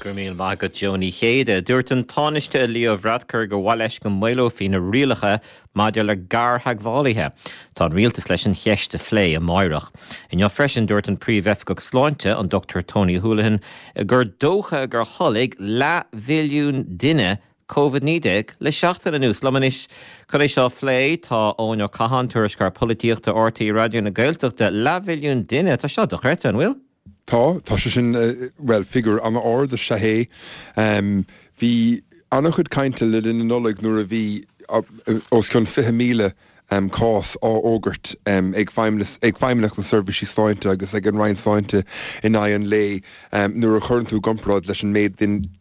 Go raibh míle maith agat Joe Ní Chéide. Dúirt an Tánaiste Leo Varadkar gur mhaith leis go maolófaí na rialacha maidir le gartheagmhálaithe. Tá an rialtas leis an cheist a phlé amáireach. Inniu freisin dúirt an Príomh-Oifigeach Sláinte, an Dr Tony Holohan, gur dócha gur tholg leathmhilliún duine Covid-19 le seachtain anuas. Liom anois chun é seo a phlé tá Eoin Ó Catháin, Tuairisceoir Polaitíochta RTÉ Raidió na Gaeltachta. Leathmhilliún duine, tá seo dochreidte, an bhfuil? Tá, tá sé sin, bhuel, figiúr an-ard is ea é. Bhí an-chuid cainte le linn na Nollag nuair a bhí os cionn 20,000 cás á fhógairt ag Feidhmeannacht na Seirbhísí Sláinte agus ag an Roinn Sláinte in aghaidh an lae. Nuair a chuireann tú i gcomparáid leis an méid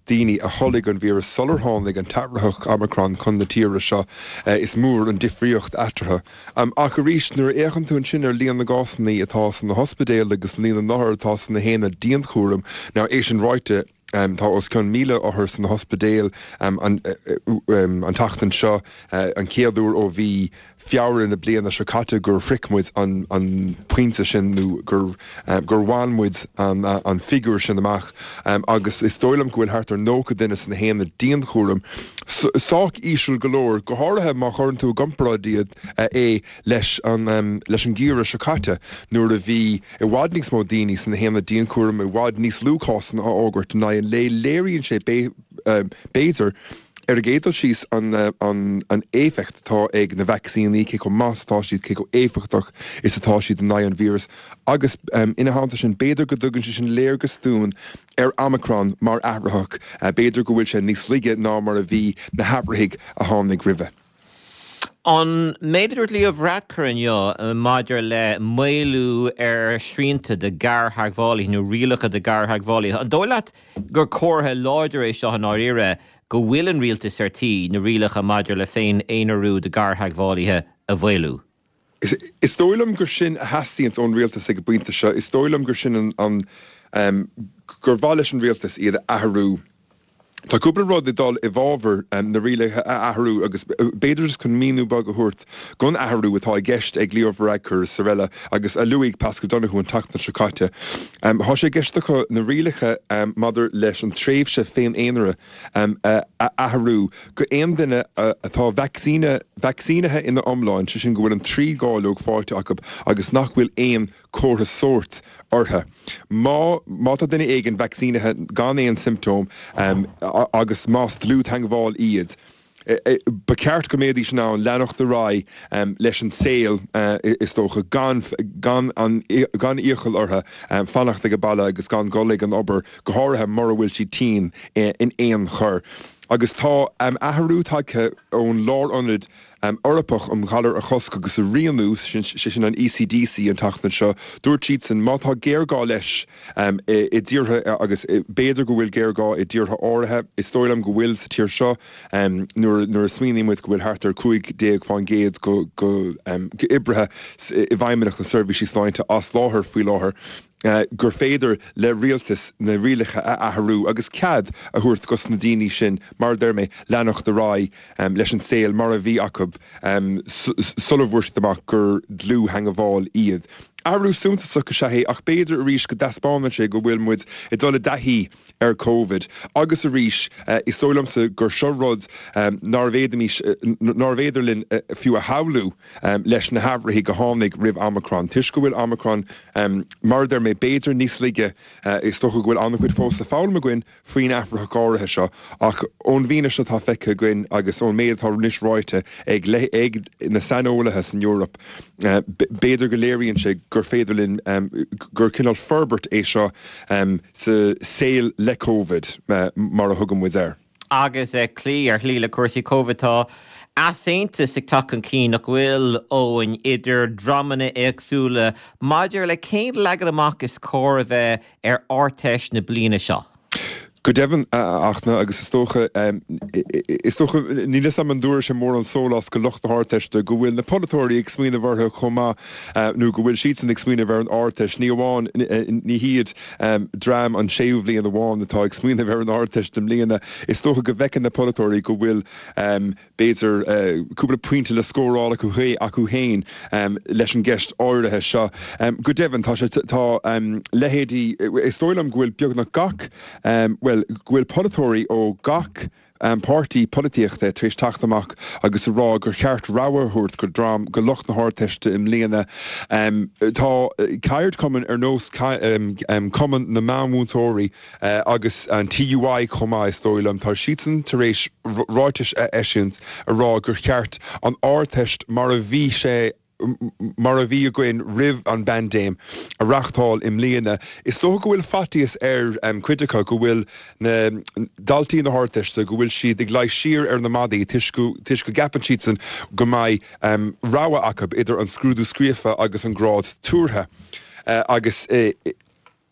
daoine a tholg an víreas sular tháinig an t-athraitheach Omicron chun na tíre seo, is mór an difríocht eatarthu. Ach arís, nuair a fhéachann tú ansin ar líon na gcásanna atá sna hospidéil agus líon na n-othar atá sna haonaid dianchúraim, now é sin ráite, tá os cionn 1,000 othar sna hospidéil an tseachtain seo, an chéad uair ó mhí Feabhra na bliana seo caite gur shroich muid an pointe sin nó gur gur bhain muid an figiúr sin amach agus is dóigh liom go bhfuil thart ar 90 duine sna haonaid dianchúraim. Sách íseal go leor, go háirithe má chuireann tú i gcomparáid iad é leis an leis an gheimhreadh seo caite nuair a bhí i bhfad níos mó daoine sna haonaid dianchúraim, i bhfad níos lú cásanna á fhógairt in aghaidh an lae. Léiríonn sé b'fhéidir, ar an gcéad dul síos, an éifeacht atá ag na vacsaíní, cé chomh maith is atá siad, cé chomh éifeachtach is atá siad in aghaidh an víreas agus ina theannta sin, b'fhéidir go dtugann sé sin léargas dúinn ar Omicron mar athraitheach, b'fhéidir go bhfuil sé níos laige ná mar a bhí na hathraithigh a tháinig roimhe. An méid a dúirt Leo Varadkar inniu maidir le maolú ar shrianta do ghartheagmhálaithe nó rialacha do ghartheagmhálaithe, an dóigh leat gur comhartha láidir é seo i ndáiríre go bhfuil an rialtas ar tí na rialacha maidir le féin-aonarú do ghartheagmhálaithe a mhaolú? Is dóigh liom gur sin a theastaíonns ón rialtas ag an bpointe seo. Is dóigh liom gur sin an, gur mhaith leis an rialtas iad a athrú. Tá cúpla rud ag dul i bhfabhar na rialacha a athrú agus b'fhéidir just chun míniú beag a thabhairt don athrú atá i gceist ag Leo Varadkar is araile agus a luaigh Paschal Donohoe an tseachtain seo caite. Tá sé i gceist acu na rialacha maidir leis an tréimhse féin-aonaraithe a athrú go aon duine atá vacsaínithe ina iomlán, sé sin go bhfuil an trí dháileog faighte acu agus nach bhfuil aon comhartha sóirt orthu. Má má tá duine éigin vacsaínithe gan aon siomptóm agus más dlúth-theagmháil iad, ba cheart go mbeidís in ann leanacht ar aghaidh leis an saol, is dócha, gan gan an gan iachall orthu fanacht ag baile agus gan dul ag an obair, go háirithe mura bhfuil siad tinn in aon chor. Agus tá athrú tagtha ón Lárionad Eorpach um Ghalair a Chosc agus a Rianú, sé sin an ECDC, an tseachtain seo. Dúirt siadsan má tá géarghá leis i dtíortha, agus b'fhéidir go bhfuil géarghá i dtíortha áirithe, is dóigh liom go bhfuil sa tír seo, nuair a smaoiníonn muid go bhfuil thart ar 15% d'oibrithe i bhFeidhmeannacht na Seirbhísí Sláinte as láthair faoi láthair. gur féidir le rialtas na rialacha a athrú agus cead a thabhairt dos na daoine sin, mar a deir mé, leanacht ar aghaidh leis an saol mar a bhí acu sula bhfuair siad amach gur dlúth-theagmháil iad. Athrú suntasach is ea é ach b'fhéidir arís go dtaispeánann sé go bhfuil muid ag dul i dtaithí ar Covid agus arís is dóigh liomsa gur seo rud nárbh fhéadfaimis, nárbh fhéidir linn fiú a shamhlú leis na hathraithigh a tháinig roimh Omicron. Toisc go bhfuil Omicron, mar a deir mé, b'fhéidir níos laige, is dócha go bhfuil an-chuid fós le foghlaim againn faoin athraitheach áirithe seo ach ón bhfianaise atá feicthe againn agus ón méid atá anois ráite ag ag na saineolaithe san Eoraip, b'fhéidir go léiríonn sé gur féidir linn, gur cineál forbairt é seo sa saol le Covid, mar a thugann muid air. Agus ag cloí ar shlí le cúrsaí Covid, tá easaontas ag teacht chun cinn, nach bhfuil, Eoin, idir dreamanna éagsúla maidir le cén leagan amach is cóir a bheith ar Ardteist na bliana seo? Go deimhin, a Fhachtna, agus is dócha, is dócha, níl 'fhios a'm an dtabharfaidh sé mórán sóláis go lucht na hArdteiste go bhfuil na polaiteoirí ag smaoineamh orthu chomh maith, nó go bhfuil siadsan ag smaoineamh ar an Ardteist, ní amháin, ní hiad dream an séú bhliain amháin atá ag smaoineamh ar an Ardteist i mbliana. Is dócha go bhfeiceann na polaiteoirí go bhfuil, b'fhéidir, cúpla pointe le scóráil acu acu féin leis an gceist áirithe seo. Go deimhin, tá sé, tá leithéidí, is dóigh liom go bhfuil beagnach gach, bhuel. bhuel, go bhfuil polaiteoirí ó gach páirtí polaitíochta tar éis teacht amach agus a rá gur cheart rogha a thabhairt go dream, go lucht na hArdteiste i mbliana. Tá ceardchumainn ar nós Cumann na Meánmhúinteoirí agus an TUI chomh maith, is dóigh liom, tá siadsan tar éis ráitis a eisiúint a rá gur cheart an Ardteist mar a bhí sé mar a bhí againn roimh an bpaindéim, a reáchtáil i mbliana. Is dócha go bhfuil faitíos ar chuid acu go bhfuil na daltaí na hArdteiste, go bhfuil siad ag luí siar ar na maidí toisc go gceapann siadsan go mbeidh rogha acu idir an scrúdú scríofa agus an grád tuartha agus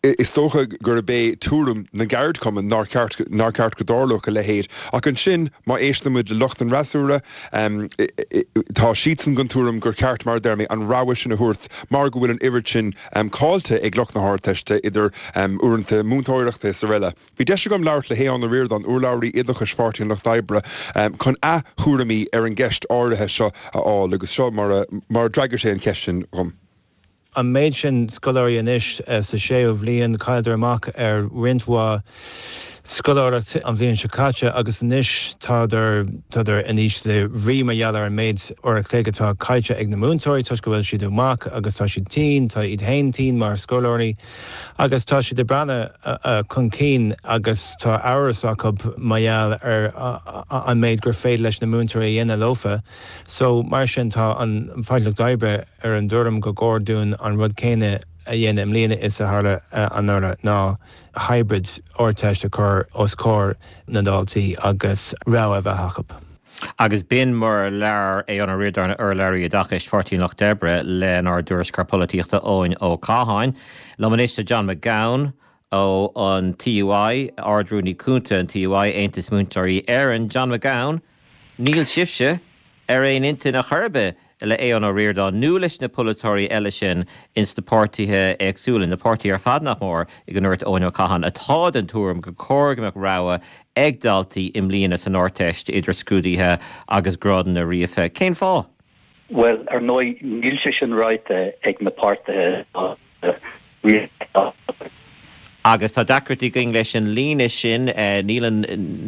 Is dócha gurb é tuairim na gceardchumann nár cheart nár cheart go dtarlódh a leithéid. Ach ansin, má éisteann muid le lucht an fhreasúra, tá siadsan den tuairim gur cheart, mar a deir mé, an rogha sin a thabhairt mar go bhfuil an oiread sin caillte ag lucht na hArdteiste, idir uaireanta múinteoireachta is araile. Bhí deis agam labhairt le hAodhán Ó Ríordáin, urlabhraí oideachais Pháirtí an Lucht Oibre, chun a thuairimí ar an gceist áirithe seo a fháil agus seo mar a d'fhreagair sé an cheist sin dhom. An méid sin scoláirí anois sa séú bhliain, chailleadar amach ar roinnt mhaith scoláireacht an bhliain seo caite agus anois tádar, tádar in ísle brí mar gheall ar an méid uair a chloig atá caillte ag na múinteoirí toisc go bhfuil siad amach agus tá siad tinn, tá iad féin tinn mar scoláirí agus tá siad ag breathnú chun cinn agus tá amhras acu mar gheall ar an méid gur féidir leis na múinteoirí a dhéanamh leofa. So, mar sin, tá an Páirtí Lucht Oibre ar an dtuairim gur chóir dúinn an rud céanna a dhéanamh i mbliana is a tharla anuraidh, ná hybrid Ardteist a chur os comhair na ndaltaí agus rogha a bheith acu. Agus b'in mar a labhair Aodhán Ó Ríordáin, urlabhraí oideachais Pháirtí an Lucht Oibre, lenár dtuairisceoir polaitíochta Eoin Ó Catháin. Liom anois tá John McGowan, ó an TUI, Ard-Rúnaí Cúnta an TUI, Aontas Múinteoirí Éireann, John McGowan, Níl sibhse ar aon intinn ar chor ar bith le Aodhán Ó Ríordáin nó leis na polaiteoirí eile sin ins na páirtithe éagsúla, na páirtithe ar fad nach mór, go ndúirt Eoin Ó Catháin, atá den tuairim gur cóir go mbeadh rogha ag daltaí i mbliana san Ardteist idir scrúduithe agus grádanna ríofa. Cén fáth? Bhuel, ar ndóigh, níl sé sin ráite ag na páirtithe rialtais. Agus tá deacrachtaí againn leis an líne sin. Níl an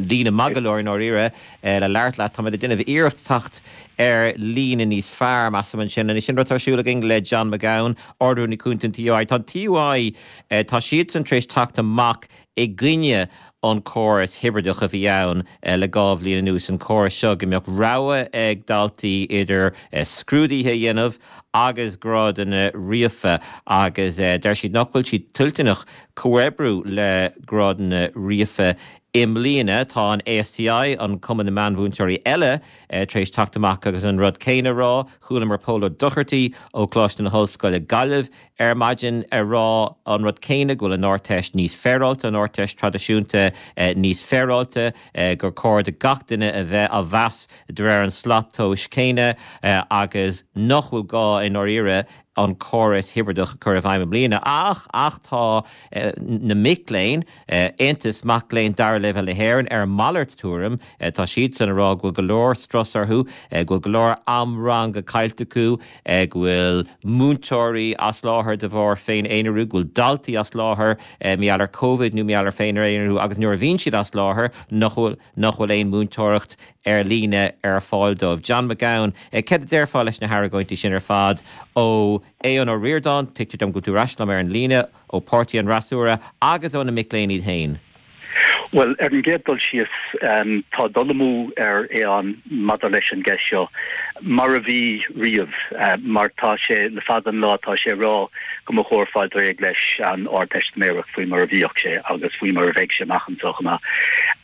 líne maith go leor i ndáiríre le labhairt leat. Táimid ag déanamh iarracht teacht ar líne níos fearr, measaim ansin. Anois, sin rud atá ar siúl againn le John McGowan, Ard-Rúnaí Cúnta an TUI. Tá an TUI, tá siadsan tar éis teacht amach i gcoinne an córas hibrideach a bhí ann le 2 bhliain anuas, an córas seo go mbeadh rogha ag daltaí idir scrúduithe a dhéanamh agus grádanna ríofa agus deir siad nach bhfuil siad toilteanach comhoibriú le grádanna ríofa i mbliana. Tá an ASTI, an Cumann na Meánmhúinteoirí eile, tar éis teacht amach agus an rud céanna a rá. Chualamar Pól Ó Dochartaigh ó Choláiste na hOllscoile Gaillimh ar maidin ag rá an rud céanna, go bhfuil an Ardteist níos féaráilte, an Ardteist traidisiúnta níos féaráilte, gur cóir do gach duine a bheith á mheas de réir an slat tomhais céanna agus nach bhfuil gá i ndáiríre an córas hibrideach a chur i bhfeidhm i mbliana. Ach, ach tá na mic léinn, Aontas Mac Léinn Dara Leibhéal na hÉireann, ar a malairt tuairim. Tá siadsan ag rá go bhfuil go leor strus orthu, go bhfuil go leor am ranga caillte acu, go bhfuil múinteoirí as láthair de bharr féin-aonarú, go bhfuil daltaí as láthair mar gheall ar Covid nó mar gheall ar féin-aonarú agus nuair a bhíonn siad as láthair nach bhfuil nach bhfuil aon múinteoireacht ar líne ar fáil dóibh. John McGowan, céard a déarfá leis na hargóintí sin ar fad ó Aodhán Ó Ríordáin, tuigtear dom go bhfuil tú ar ais liom ar an líne, ó Páirtí an Fhreasúra agus ó na mic léinn iad féin? Bhuel, ar an gcéad dul síos, tá dul amú ar Aodhán maidir leis an gceist seo, mar a bhí riamh, mar tá sé, le fada an lá, tá sé ag rá go mba chóir fáil réidh leis an Ardteistiméireacht faoi mar a bhíodh sé agus faoi mar a bheidh sé amach anseo chomh maith.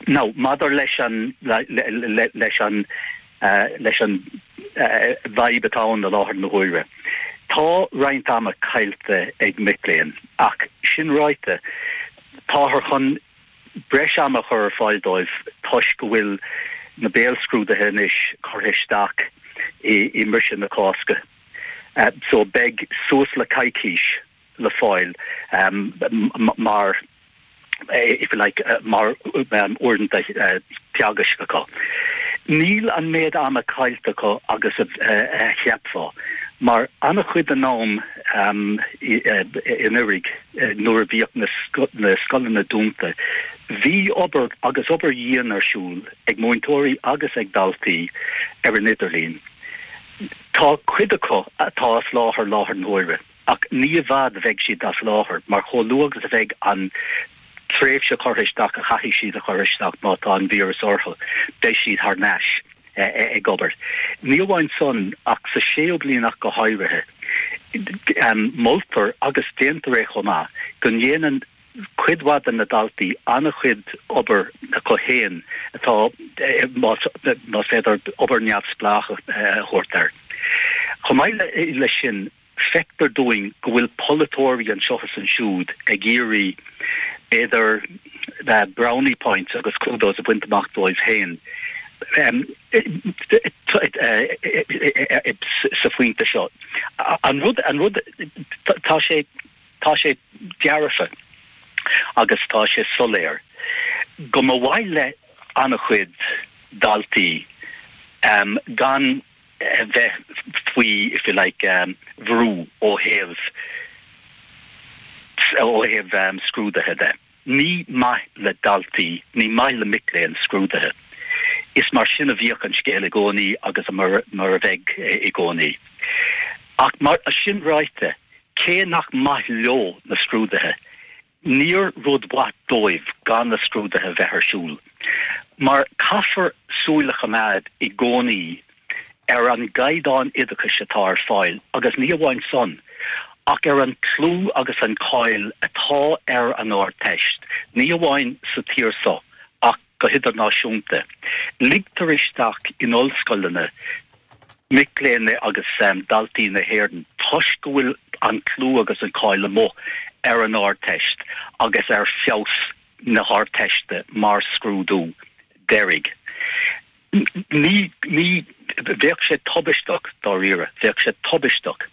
Now, maidir leis an, leis an, leis an bhfadhb atá ann i láthair na huaire, tá roinnt ama caillte ag mic léinn, ach sin ráite, Táthar chun breis ama a chur ar fáil dóibh toisc go bhfuil na béalscrúduithe anois curtha isteach i mbriseadh na Cásca. So beidh suas le coicís le fáil mar, if you like, mar uaireanta teagaisc acu. Níl an méid ama caillte acu agus a cheapfá, mar an-chuid den am anuraidh, Nuair a bhíodh na scoileanna dúnta. Bhí obair agus obair dhian ar siúl ag múinteoirí agus ag daltaí ar an idirlíon. Tá cuid acu atá as láthair láthair na huaire ach ní i bhfad a bheidh siad as láthair mar chomh luath agus a bheidh an tréimhse curtha isteach a chaithfidh siad a chur isteach má tá an víreas orthu, beidh siad thar n-ais ag obair. Ní amháin san ach sa séú bliain ach go háirithe, moltar agus déantar é chomh maith go ndéanann cuid mhaith de na daltaí an-chuid obair acu féin atá, más féidir obair neamhspleách a thabhairt air. Chomh maith leis sin, feictear dúinn go bhfuil polaiteoirí anseo is ansiúd ag iarraidh, b'fhéidir, brownie points agus kudos a bhaint amach dóibh féin sa phointe seo. An rud, an rud, tá sé. Tá sé dearfa agus tá sé soiléir go mba mhaith le an-chuid daltaí gan a bheith faoi, if you like, bhrú ó thaobh ó thaobh scrúduithe de. Ní maith le daltaí, ní maith le mic léinn scrúduithe. Is mar sin a bhíodh an scéal i gcónaí agus mar a bheidh i gcónaí. Ach mar sin ráite, cé nach maith leo na scrúduithe, níor rud mhaith dóibh gan na scrúduithe bheith ar siúl. Mar caithfear súil a choimeád i gcónaí ar an gcaighdeán oideachais atá ar fáil agus ní amháin san, ach ar an clú agus an cáil atá ar an Ardteist, ní amháin sa tír so ach go hidirnáisiúnta. Ligtear isteach in ollscoileanna mic léinn agus daltaí na hÉireann toisc go bhfuil an clú agus an cáil amuigh ar an Ardteist agus ar feabhas na hArdteiste mar scrúdú deiridh. Ní, ní, bheadh sé tubaisteach, dáiríre, bheadh sé tubaisteach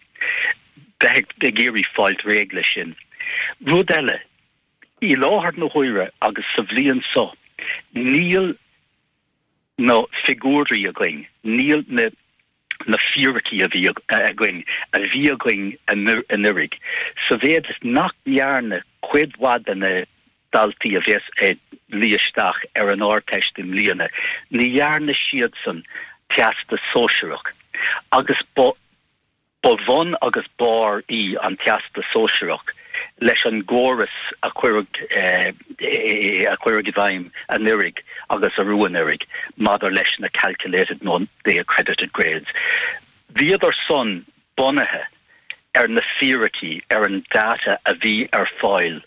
bheith ag iarraidh fáilt réidh leis sin. Rud eile, i láthair na huaire agus sa bhliain so, níl na figiúirí againn, níl na, na fíricí a bhí againn, a bhí againn anuraidh, sa mhéad is nach ndearna cuid mhaith de na daltaí a bheas ag luí isteach ar an Ardteist i mbliana, ní dhearna siadsan Teastas Sóisearach agus ba ba bhun agus barr í an Teastas Sóisearach leis an gcóras a cuireadh a cuireadh i bhfeidhm anuraidh agus arú anuraidh maidir leis na calculated nó the accredited grades. Bhíodar san bunaithe ar na fíricí, ar an data a bhí ar fáil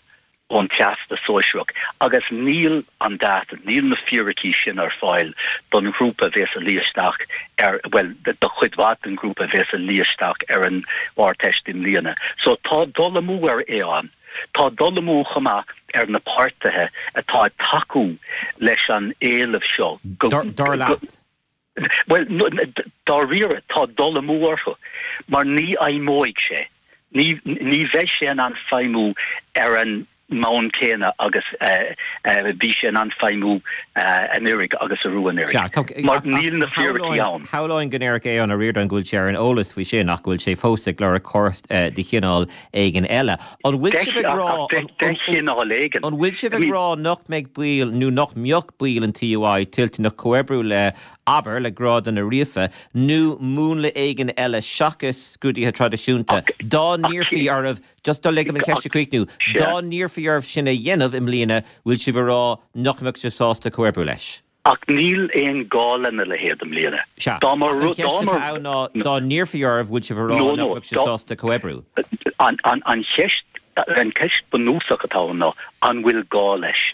ón Teastas Sóisearach agus níl an data, níl na fíricí sin ar fáil don ghrúpa a bhéas ag luí isteach ar, bhuel, do chuid mhaith den ghrúpa a bhéas ag luí isteach ar an Ardteist i mbliana. So tá dul amú ar Aodhán. Tá dul amú chomh maith ar na páirtithe atá ag tacú leis an éileamh seo go. Dar leat? Bhuel, dáiríre, tá dul amú orthu, mar ní fheidhmeoidh sé. Ní, ní bheidh sé in ann feidhmiú ar an mbonn céanna agus a bhí sé in ann feidhmiú anuraidh agus arú anuraidh, mar níl na fíricí ann. Shamhlóinn go ndéarfadh Aodhán Ó Ríordáin go bhfuil sé ar an eolas faoi sin ach go bhfuil sé fós ag lorg córas de chineál éigin eile. An bhfuil sibh ag rá, De chineál éigin. An bhfuil sibh ag rá nach mbeidh baill nó nach mbeadh baill an TUI toilteanach comhoibriú le, abair, le grádanna ríofa, nó múnla éigin eile seachas scrúduithe traidisiúnta, dá n-iarrfaí oraibh, just lig dom an cheist a chríochnú, dá n-iarrfaí oraibh sin a dhéanamh i mbliana, bhfuil sibh ag rá nach mbeadh sibh sásta comhoibriú leis? Ach níl aon gá lena leithéid i mbliana. Sea, ach an cheist atá ann ná, dá n-iarrfaí oraibh, bhfuil sibh ag rá nach mbeadh sibh sásta comhoibriú? An cheist, an cheist bunúsach atá ann ná, an bhfuil gá leis?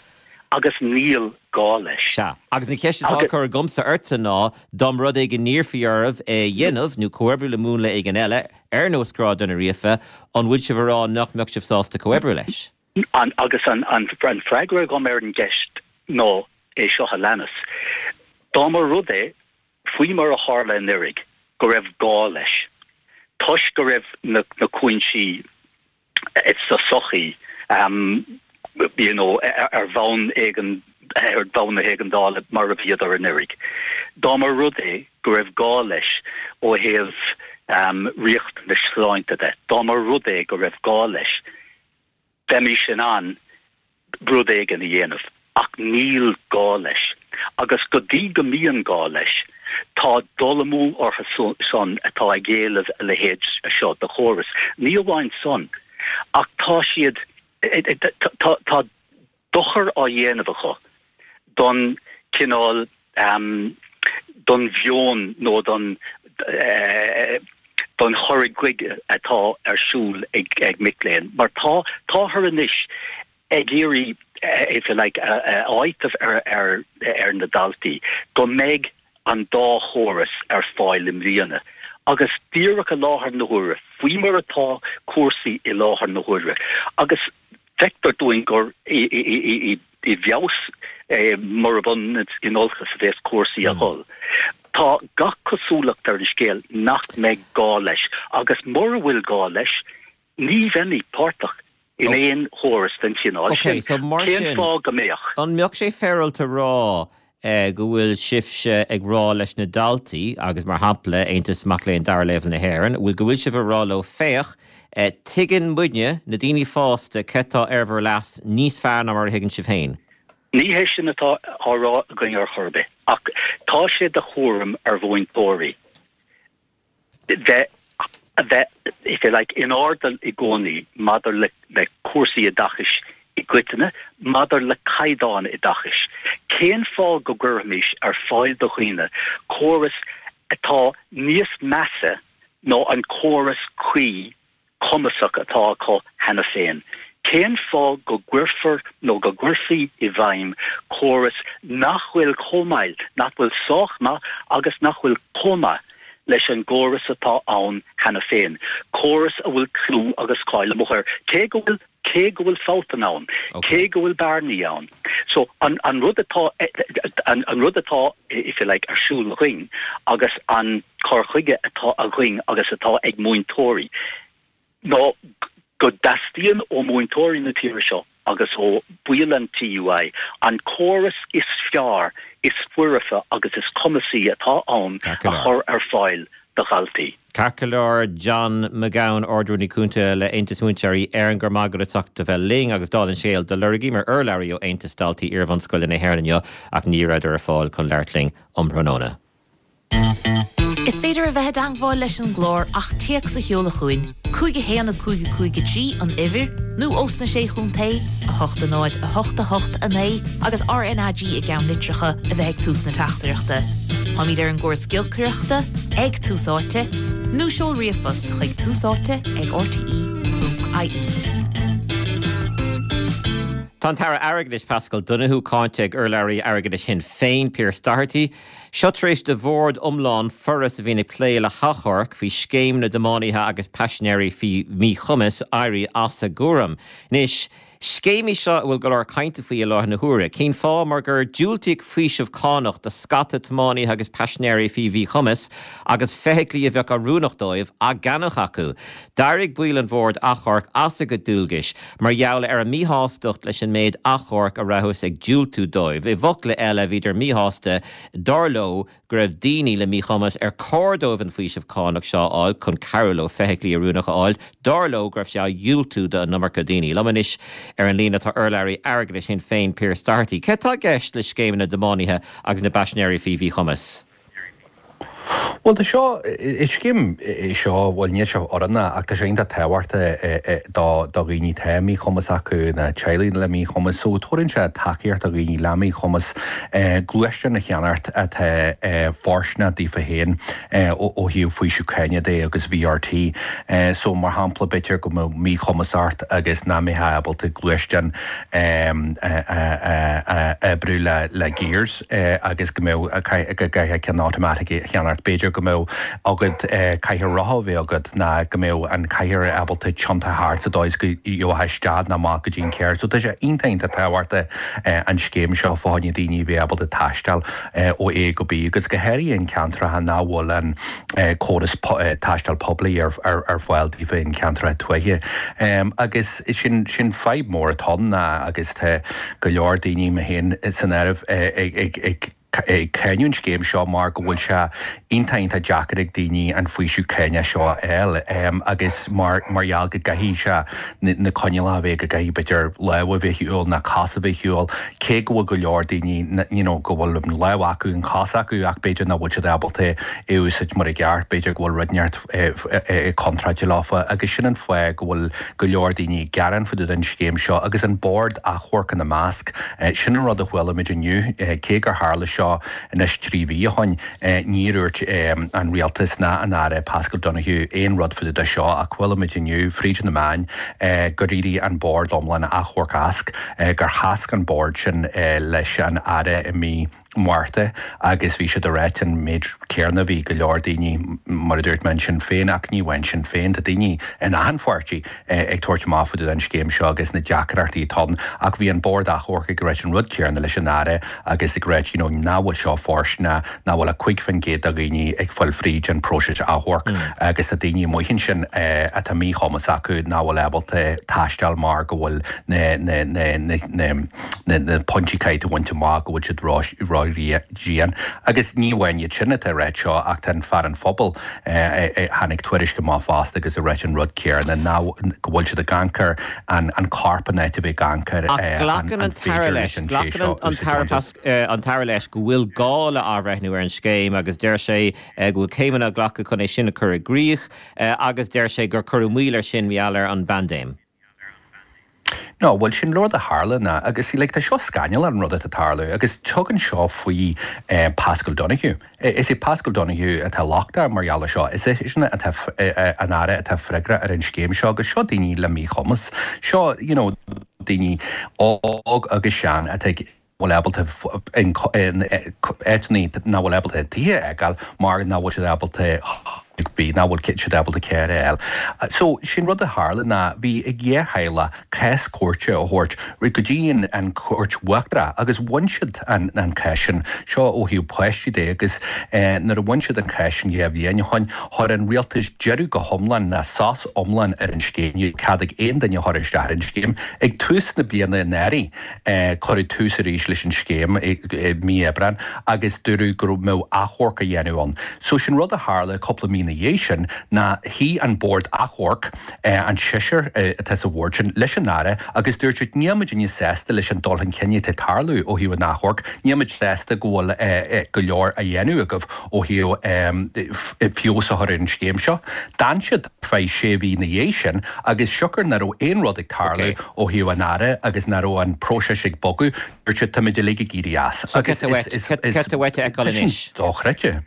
Agus níl gá leis. Sea, agus an cheist atá á cur agamsa ortsa ná, dá mba rud é go n-iarrfaí oraibh é a dhéanamh, nó comhoibriú le múnla éigin eile, ar nós grádanna ríofa, an bhfuil sibh ag rá nach mbeadh sibh sásta comhoibriú leis? Agus an freagra agam ar an gceist ná, é seo a leanas, Dá mba rud é, faoi mar a tharla anuraidh, go raibh gá leis, toisc go raibh na cúinsí sa tsochaí you know ar bhonn éigean, ar bhonn na héigeandála mar a bhíodar anuraidh, dá mba rud é go raibh gá leis ó thaobh riachtanais sláinte de, dá mba rud é go raibh gá leis, bheimis in ann rud éigin a dhéanamh. Ach níl gá leis. Agus go dtí go mbíonn gá leis, tá dul amú orthu san atá ag éileamh a leithéid seo de chóras. Ní amháin san, ach tá siad, tá dochar á dhéanamh acu don chineál, don mheon nó don don chur chuige atá ar siúl ag mic léinn. Mar tá, táthar anois ag iarraidh, if you like, a áiteamh ar ar na daltaí go mbeidh an dá chóras ar fáil i mbliana agus díreach i láthair na huaire, faoi mar atá cúrsaí i láthair na huaire agus feictear dúinn gur i bhfeabhas murab ionann is in olcas a bheas cúrsaí a dhul. Tá gach cosúlacht ar an scéal nach mbeidh gá leis agus mura bhfuil gá leis, Ní bheimid páirteach in aon chóras den chineál sin. Cén fáth go mbeadh? An mbeadh sé féaráilte a rá go bhfuil sibhse ag rá leis na daltaí, agus mar shampla Aontas Mac Léinn Dara Leibhéal na hÉireann, bhfuil go bhfuil sibh ag rá leo féach, tuigeann muidne, na daoine fásta, cé tá ar bhur leas níos fearr ná mar a thuigeann sibh féin? Ní hé sin atá á rá againn ar chor ar bith, ach tá sé de chúram ar mhúinteoirí bheith, a bheith, if you like, in airdeall i gcónaí maidir le, le cúrsaí oideachais i gcoitinne, maidir le caighdeán oideachais. Cén fáth go gcuirfimis ar fáil do dhaoine córas atá níos measa ná an córas cuí cumasach atá acu cheana féin. Cén fáth go gcuirfear nó go gcuirfí i bhfeidhm córas nach bhfuil chomh maith, nach bhfuil sách maith agus nach bhfuil chomh maith leis an gcóras atá ann cheana féin, córas a bhfuil clú agus cáil amuigh air, cé go bhfuil cé go bhfuil fabhtanna ann, cé go bhfuil bearnaí ann. So, an an rud atá an an rud atá, if you like, ar siúl againn agus an cur chuige atá againn agus atá ag múinteoirí ná go dteastaíonn ó mhúinteoirí na tíre seo agus ó bhaill an TUI an córas is fearr, is foirfe agus is cumasaí atá ann a chur ar fáil do dhaltaí. Ceart go leor, John McGowan, Ard-Rúnaí Cúnta le Aontas Múinteoirí Éireann, go raibh maith agat as ucht a bheith linn agus dála an scéil, do lorgaíomar urlabhraí ó Aontas Daltaí Iarbhunscoile na hÉireann inniu ach ní rabhadar ar fáil chun labhairt linn um thráthnóna. Is féidir a bheith i dteangmháil leis an gclár ach téacs a sheoladh chugainn, 5 1 5 5 3 an uimhir, nó ós na Sé Chontae, 8 0 8 8 9 agus RnaG i gceannlitreacha a bheith ag tús na teachtaireachta. Táimid ar an gcóras giolcaireachta, ag Tús Áite, nó seol ríomhphost chuig túsáite ag rte.ie. Tá an tAire Airgeadais Paschal Donohoe cáinte ag urlabhraí airgeadais Shinn Féin, Pearse Doherty. Seo tar éis do bhord iomlán Foras a bhíonn ag plé le hachomhairc faoi scéim na dtiománaithe agus paisinéirí faoi mhíchumas éirí as a gcúram. Anois, scéim í seo a bhfuil go leor cainte faoi i láthair na huaire. Cén fáth? Mar gur diúltaíodh faoiseamh cánach do scata tiománaithe agus paisinéirí faoi mhíchumas agus feithiclí a bheadh oiriúnach dóibh á gceannach acu. D'éirigh baill an bhoird achomhairc as a gcuid dualgais mar gheall ar a míshástacht leis an méid achomharc a rabhthas ag diúltú dóibh. I bhfocla eile, bhíodar míshásta, dar leo, go raibh daoine le míchumas ar chóir dóibh an faoiseamh cánach seo a fháil chun cabhrú leo feithiclí oiriúnacha a fháil, dar leo go raibh sé á dhiúltú do an iomarca daoine. Liom anois ar an líne tá urlabhraí airgeadais Shinn Féin, Pearse Doherty. Cé tá i gceist le scéim na dtiománaithe agus na bpaisinéirí faoi mhíchumas? Bhuel, tá seo, is scéim é seo, bhuel níl sé oiriúnach ach tá sé iontach tábhachtach do dhaoine atá míchumas acu, na teaghlaigh le míchumas. So tabharann sé tacaíocht do dhaoine le míchumas gluaisteán a cheannacht atá fóirsteanach daofa féin ó thaobh faoiseamh cáine de agus VRT. So mar shampla b'fhéidir go mbeadh míchumas ort agus nach mbeifeá ábalta gluaisteán a oibriú le gears. agus go mbeadh, go gcaithfeá ceann automatic a cheannacht. B'fhéidir go mbeadh agat cathaoir rotha a bheith agat ná go mbeadh an cathaoir ábalta tiontú thart sa dóigh is go gheofá isteach nó amach go dtí an carr. So tá sé iontach iontach tábhachtach an scéim seo fá choinne daoine a bheith ábalta taisteal ó A go B agus go háirithe in ceantracha nach bhfuil an córas taisteal poiblí ar fáil daofa in ceantracha tuaithe. Agus sin sin fadhb mór atá ann agus tá go leor daoine, mé féin san áireamh, ag. ag cáineadh an scéim seo mar go bhfuil sé iontach iontach deacair ag daoine an faoiseamh cánach seo a fháil agus mar mar gheall go gcaithfidh sé na coinníollacha a bheith go gcaithfidh b'fhéidir lámh a bheith ar shiúl nó cos a bheith ar shiúl cé go bhfuil go leor daoine you know go bhfuil an lámh acu an chos acu ach b'fhéidir nach bhfuil siad ábalta é a úsáid mar i gceart b'fhéidir go bhfuil rud inteacht contráilte leofa agus sin an fáth go bhfuil go leor daoine ag gearán fá dtaobh den scéim seo agus an Bord Achomhairc ina measc. Sin an rud a chuala muid inniu, cé gur tharla seo anois 3 mhí ó shoin, níor dhúirt an Rialtas ná an Aire Paschal Donohoe aon rud fá dtaobh de seo ach chuala muid inniu fríd na meáin gur éirigh an Bord iomlán Achomhairc as, gur chasc an Bord sin leis an Aire i mí Márta agus bhí siad ag ráit an méid céarna, bhí go leor daoine, mar a dúirt mé, in Sinn Féin ach ní amháin Sinn Féin, tá daoine in achan pháirtí ag tabhairt amach fá dtaobh den scéim seo agus na deacrachtaí atá ann ach bhí an Bord Achomhairc ag ráit an rud céarna leis an Aire agus ag ráit you know nach bhfuil seo fóirsteanach, nach bhfuil ach 5% de dhaoine ag fáil fríd an próiseas achomhairc agus tá daoine amuigh ansin atá míchumas acu nach bhfuil ábalta taisteal mar go bhfuil na na na na na pointí caithfidh tú a bhaint amach go bhfuil siad ró-dhian. Agus ní amháin iad sin atá ag ráit seo ach tá an Fear an Phobail, tháinig tuairisc amach fosta agus ag ráit an rud céarna, ná go bhfuil siad ag amharc ar an corp in áit a bheith ag amharc ar Ach glacann an tAire leis, glacann an tAire an tAire leis go bhfuil gá le athbhreithniú ar an scéim agus deir sé go bhfuil céimeanna á nglacadh chun é sin a chur i gcrích agus deir sé gur cuireadh moill air sin mar gheall ar an bpaindéim. No, bhuel sin rud a tharla ná, agus like tá seo scannalach an rud atá ag tarlú agus tugann seo faoi Paschal Donohoe. Is é Paschal Donohoe atá lochtach mar gheall ar seo, is eisean atá an Aire atá freagrach ar an scéim seo agus seo daoine le míchumas, seo you know daoine óg agus sean atá ag bhfuil ábalta in áiteanna nach bhfuil ábalta tithe a fhágáil mar nach bhfuil siad ábalta bídh, nach bhfuil siad ábalta carr a fháil. So, sé'n rud a tharla ná bhí ag dhá theaghlach cás cúirte a thabhairt go dtí an Chúirt Uachtarach agus bhain siad an cás sin, seo ó thaobh páistí de agus nuair a bhain siad an cás sin dhá bhliain ó shoin, chuir an rialtas deireadh go hiomlán ná sos iomlán ar an scéim, ní raibh cead ag aon duine a chur isteach ar an scéim. Ag tús na bliana anuraidh, Cuireadh tús arís leis an scéim i mí Aibreáin agus dúradh go mbeadh achomharc á dhéanamh ann. So sin rud a tharla cúpla mí ina dhiaidh sin ná shuigh an Bord Achomhairc, an seisear atá sa bhord sin, leis an Aire agus dúirt siad níl muidinne sásta leis an dul chun cinn atá ag tarlú ó thaobh an achomhairc, níl muid sásta go bhfuil go leor á dhéanamh agaibh ó thaobh feabhas a chur ar an scéim seo. D'fhan siad ar feadh sé mhí ina dhiaidh sin agus siocair nach raibh aon rud ag tarlú ó thaobh an Aire agus nach raibh an próiseas ag bogadh, dúirt siad táimid uilig ag éirí as. So cad tá uait a fheiceáil anois? Dochreidte.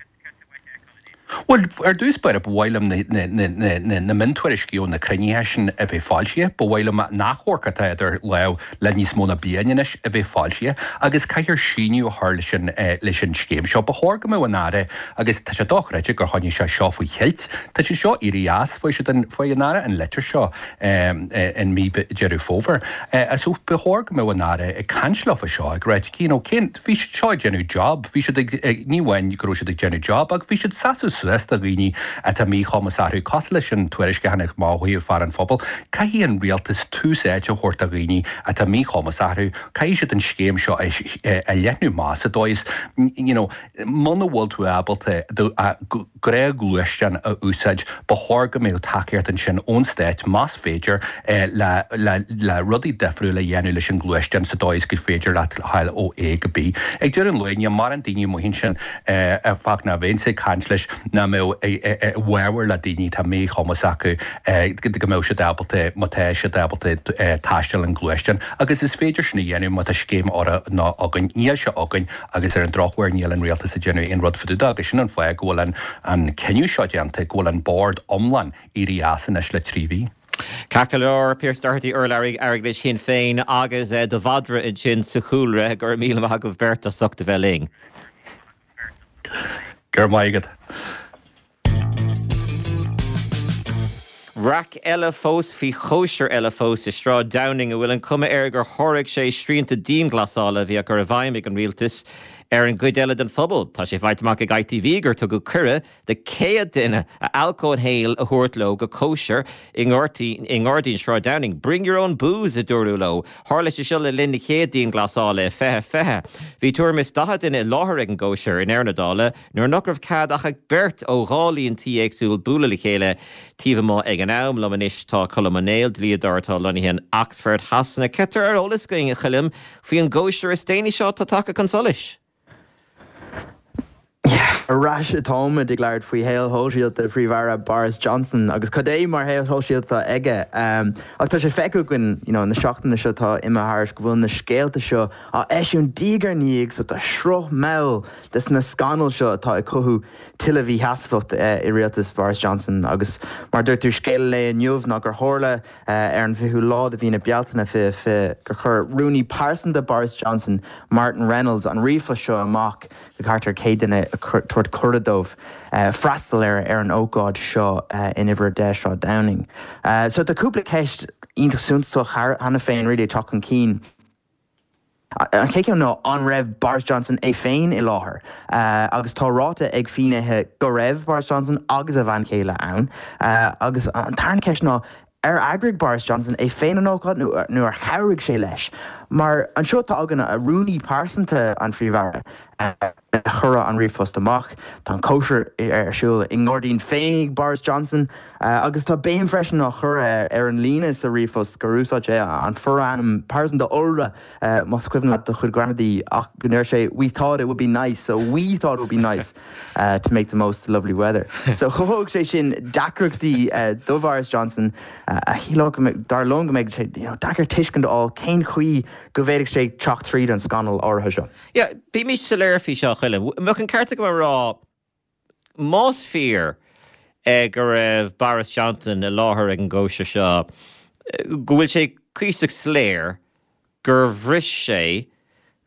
Bhuel, ar dtús báire, ba mhaith liom na miontuairiscí ó na cruinnithe sin a bheith foilsithe. Ba mhaith liom an achomharc atá idir lámh le níos mó ná bliain anois a bheith foilsithe agus caithfear síneadh a chur leis an leis an scéim seo. Ba chóir go mbeadh an Aire, agus tá sé dochreidte gur choinnigh sé seo faoi cheilt, tá sé seo éirithe as, fuair siad an, fuair an Aire an litir seo in mí Deireadh Fómhair. So ba chóir go mbeadh an Aire ag caint leo fá seo, ag ráit, you know, cén, bhí siad seo ag déanamh job, bhí siad ag, ní amháin go raibh siad ag déanamh job ach bhí siad ag seasamh suas do dhaoine atá míchumas orthu, cosúil leis an tuairisc a tháinig amach ó thaobh fear an phobail. Caithfidh an rialtas tús áite a thabhairt do dhaoine atá míchumas orthu, caithfidh siad an scéim seo a leathnú amach sa dóigh is, you know, muna bhfuil tú ábalta do ghnáthghluaisteán a úsáid, ba chóir go mbeadh tacaíocht ansin ón stát, más féidir, le le rudaí difriúla a dhéanamh leis an ngluaisteán sa dóigh is gur féidir leat a ghabháil ó A go B. Ag deireadh an lae, níl mórán daoine amuigh ansin a fág ná bheinnse ag caint leis nach mbeadh i bhfabhar le daoine atá míchumas acu go mbeadh siad ábalta, má tá siad ábalta taisteal an gluaisteán agus is féidir sin a dhéanamh má tá scéim oiriúnach againn. Níl sé againn. Agus ar an drochuair níl an rialtas ag déanamh aon rud fá dtaobh de agus sin an fáth go bhfuil an cinneadh seo déanta, go bhfuil an bord iomlán éirithe as anois le 3 mhí. Ceart go leor, Pearse Doherty, urlabhraí airgeadais Shinn Féin agus do mhadra ansin sa chúlra. Go raibh míle maith agaibh beirt as ucht a bheith linn. Go raibh maith agat. Raic eile fós faoi chóisir eile fós i Sráid Downing a bhfuil an chuma air gur sháraigh sé srianta dianghlasála a bhí á gcur i bhfeidhm ag an rialtas. ar an gcuid eile den phobal. Tá sé faighte amach ag ITV gur tugadh cuireadh do 100 duine a alcól féin a thabhairt leo go cóisir i nGairdín Shráid Downing. Bring your own booze, a dúradh leo. Tharla sé seo le linn na chéad dianghlasála i 2020. Bhí tuairim is 40 duine i láthair ag an gcóisir i ndeireadh na dála nuair nach raibh cead ach ag beirt ó dhá líon tí éagsúil bualadh le chéile taobh amuigh ag an am. Liom anois tá Colm Ó Néill, dlíodóir atá lonnaithe in Oxford Shasana. Céard atá ar eolas againn, a Choilm, faoi an gcóisir is déanaí seo atá tagtha chun solais? Ar ais atáimid ag labhairt faoi shaol shóisialta Phríomh-Aire Boris Johnson agus cad é mar shaol shóisialta atá aige. Ach tá sé feicthe againn you know na seachtaine seo atá imithe thairis go bhfuil na scéalta seo á eisiúint diaidh ar ndiaidh so tá sruth mall des na scannail seo atá ag cothú tuilleadh mhísheasmhacht i rialtas Boris Johnson agus mar a dúirt tú scéal an lae inniu ná gur tharla Ar an bhfichiú lá de mhí na Bealtaine 2020 gur chuir rúnaí pearsanta Boris Johnson, Martin Reynolds, an ríomhphost seo amach go thart ar 100 duine ag tabhairt cuireadh dóibh freastal ar ar an ócáid seo in Uimhir 10 Sráid Downing. So tá cúpla ceist iontach suntasach cheana féin really ag teacht chun cinn. An chéad cheann ná an raibh Boris Johnson é féin i láthair? Agus tá ráite ag finnéithe go raibh Boris Johnson agus a bhean chéile ann. Agus an tarna ceist ná ar eagraigh Boris Johnson é féin an ócáid nó ar chabhraigh sé leis? Mar anseo tá againn rúnaí pearsanta an Phríomh-Aire. a chuir an ríomhphost amach. Tá an cóisir ar siúl i ngairdín féin ag Boris Johnson agus tá béim freisin á chur ar an líne sa ríomhphost gur úsáid sé an forainm pearsanta iolra, más cuimhin leat do chuid gramadaí, ach go ndeir sé we thought it would be nice, so we thought it would be nice to make the most of the lovely weather. So chothódh sé sin deacrachtaí do Bhoris Johnson a shílfeadh, dar liom, go mbeidh sé deacair tuiscint a fháil cén chaoi go bhféadfadh sé teacht tríd an scannal áirithe seo. Yeah, bímis soiléir faoi seo, a Choilm. An mbeadh an ceart agam a rá, más fíor go raibh Boris Johnson i láthair ag an gcóisir seo, go bhfuil sé cuíosach soiléir gur bhris sé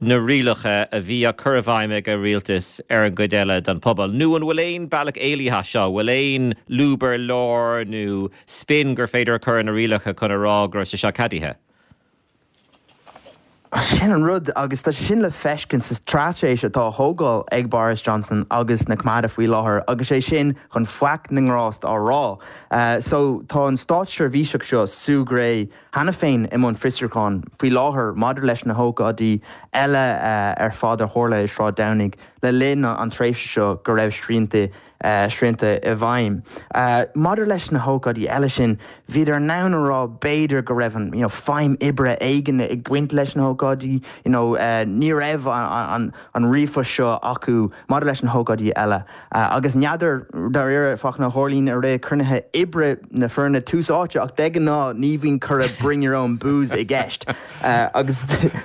na rialacha a bhí á cur i bhfeidhm ag a rialtas ar an gcuid eile den phobal? Nó an bhfuil aon bealach éalaithe as seo? An bhfuil aon lúb ar lár nó spin gur féidir a chur ar na rialacha chun a rá go raibh sé seo ceadaithe? Sin an rud, agus tá sé sin le feiscint sa straitéis atá á thógáil ag Boris Johnson agus na Coimeádaithe faoi láthair, agus é sin chun faic na ngrást á rá. So, tá an státseirbhíseach seo, Sue Gray, cheana féin i mbun fiosrúcháin faoi láthair maidir leis na hócáidí eile ar fad a tharla i Sráid Downing le linn an tréimhse seo go raibh srianta srianta i bhfeidhm. Maidir leis na hócáidí eile sin, bhíodar in ann a rá b'fhéidir go raibh an you know feidhm oibre éigin ag baint leis na hócáidí, you know ní raibh an an ríomhphost seo acu maidir leis na hócáidí eile. Agus n'fheadar dáiríre fáthanna a tharlaíonn i rith cruinnithe oibre na foirne tús áite ach de ghnáth ní bhíonn cuireadh bring your own booze i gceist. Agus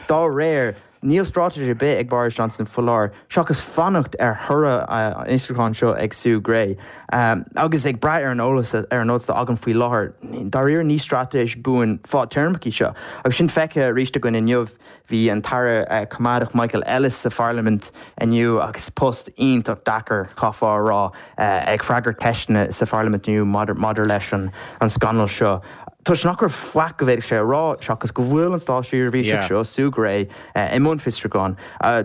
dá réir, Níl straitéis ar bith ag Boris Johnson faoi láthair seachas fanacht ar thoradh an fhiosrúcháin seo ag Sue Gray. Agus ag brath ar an eolas ar an eolas atá againn faoi láthair, dáiríre ní straitéis buan fadtéarmach í seo. Agus sin feicthe arís againn inniu. Bhí an tAire Coimeádach Michael Ellis sa Pharlaimint inniu agus post iontach deacair, chaithfeá a rá, ag freagairt ceisteanna sa Pharlaimint inniu maidir leis an scannal seo. Toisc nach raibh faic go bhféadfadh sé a rá seachas go bhfuil an státseirbhíseach seo, Sue Gray, i mbun fiosrúcháin,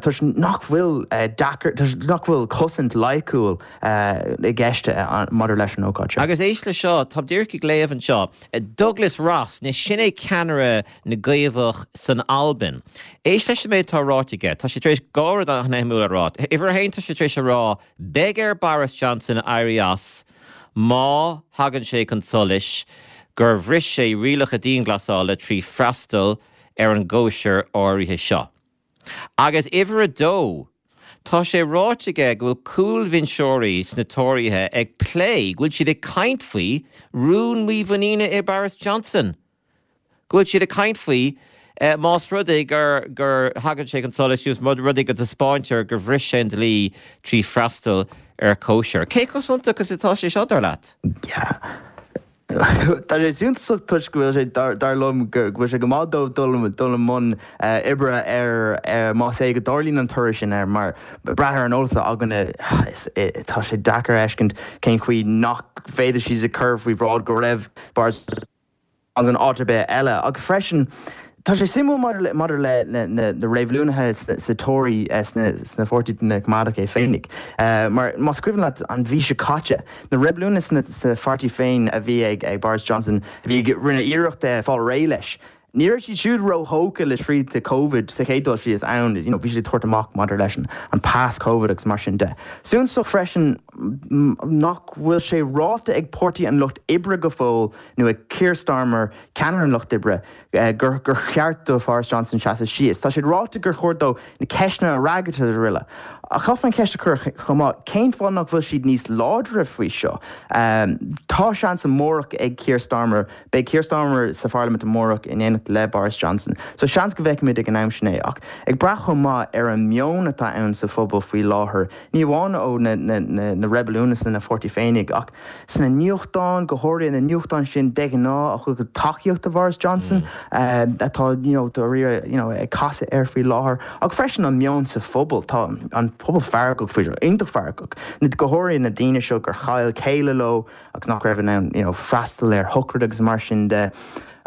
toisc nach bhfuil deacair, toisc nach bhfuil cosaint loighciúil i gceist maidir leis an ócáid seo. Agus éist le seo, táim díreach ag léamh anseo, Douglas Ross, anois sin é ceannaire na gCaomhach san Albain. Éist leis an méid atá ráite aige, tá sé tar éis dhá rud an-shuimiúil a rá. Uimhir a haon, tá sé tar éis a rá, beidh ar Boris Johnson éirí as, má thagann sé chun solais gur bhris sé rialacha dianghlasála trí freastal ar an gcóisir áirithe seo. Agus uimhir a dó, tá sé ráite aige go bhfuil cúlbhinseoirí sna Tóraithe ag plé, go bhfuil siad ag caint faoi rún mímhuiníne i Boris Johnson. go bhfuil siad ag caint faoi más rud é gur gur thagann sé chun solais más rud é go dtaispeáintear gur bhris sé an dlí trí freastal ar chóisir. Cé chomh suntasach is atá sé seo, dar leat? Yeah. Tá sé suntasach toisc go bhfuil sé, dar liom, go bhfuil sé go maith dóibh dul dul i mbun oibre ar más é go dtarlaíonn an toradh sin air mar brath ar an eolas atá againne tá sé deacair a fheiscint cén chaoi nach bhféadfadh siad a chur faoi bhráid go raibh Boris Johnson áit ar bith eile. Ach freisin, Tá sé suimiúil maidir le maidir le na na reibiliúnaithe sa Tory sna sna pháirtí na Coimeádach é féinig. Mar más cuimhin leat an mhí seo caite, na reibiliúnaithe sna sa pháirtí féin a bhí ag ag Boris Johnson a bhí ag rinne iarracht fáil réidh leis, ní raibh siad siúd róthógtha le srianta Covid sa chéad dul síos ann, you know bhí siad ag tabhairt amach maidir leis an an pas Covid agus mar sin de. Suntasach freisin nach bhfuil sé ráite ag Páirtí an Lucht Oibre go fóill nó ag Keir Starmer, ceannaire an Lucht Oibre, gur gur cheart do Boris Johnson seasamh síos. Tá sé ráite gur chóir dó na ceisteanna a fhreagairt agus araile. Ach chaithfear an cheist a chur chomh maith, cén fáth nach bhfuil siad níos láidre faoi seo? Tá seans amárach ag Keir Starmer, beidh Keir Starmer sa pharlaimint amárach in éineacht le Boris Johnson, so seans go bhfeicfimid ag an am sin é. Ach ag brath chomh maith ar an meon atá ann sa phobal faoi láthair, ní amháin ó na na reibiliúnaithe sna pháirtí féinig ach sna nuachtáin, go háirithe na nuachtáin sin de ghnáth a thugann tacaíocht do Boris Johnson, atá you know dáiríre you know ag casadh air faoi láthair, ach freisin an meon sa phobal. Tá an pobal feargach faoi seo, iontach feargach, go háirithe na daoine seo gur chaill céile leo agus nach raibh in ann you know freastal ar shochraid agus mar sin de.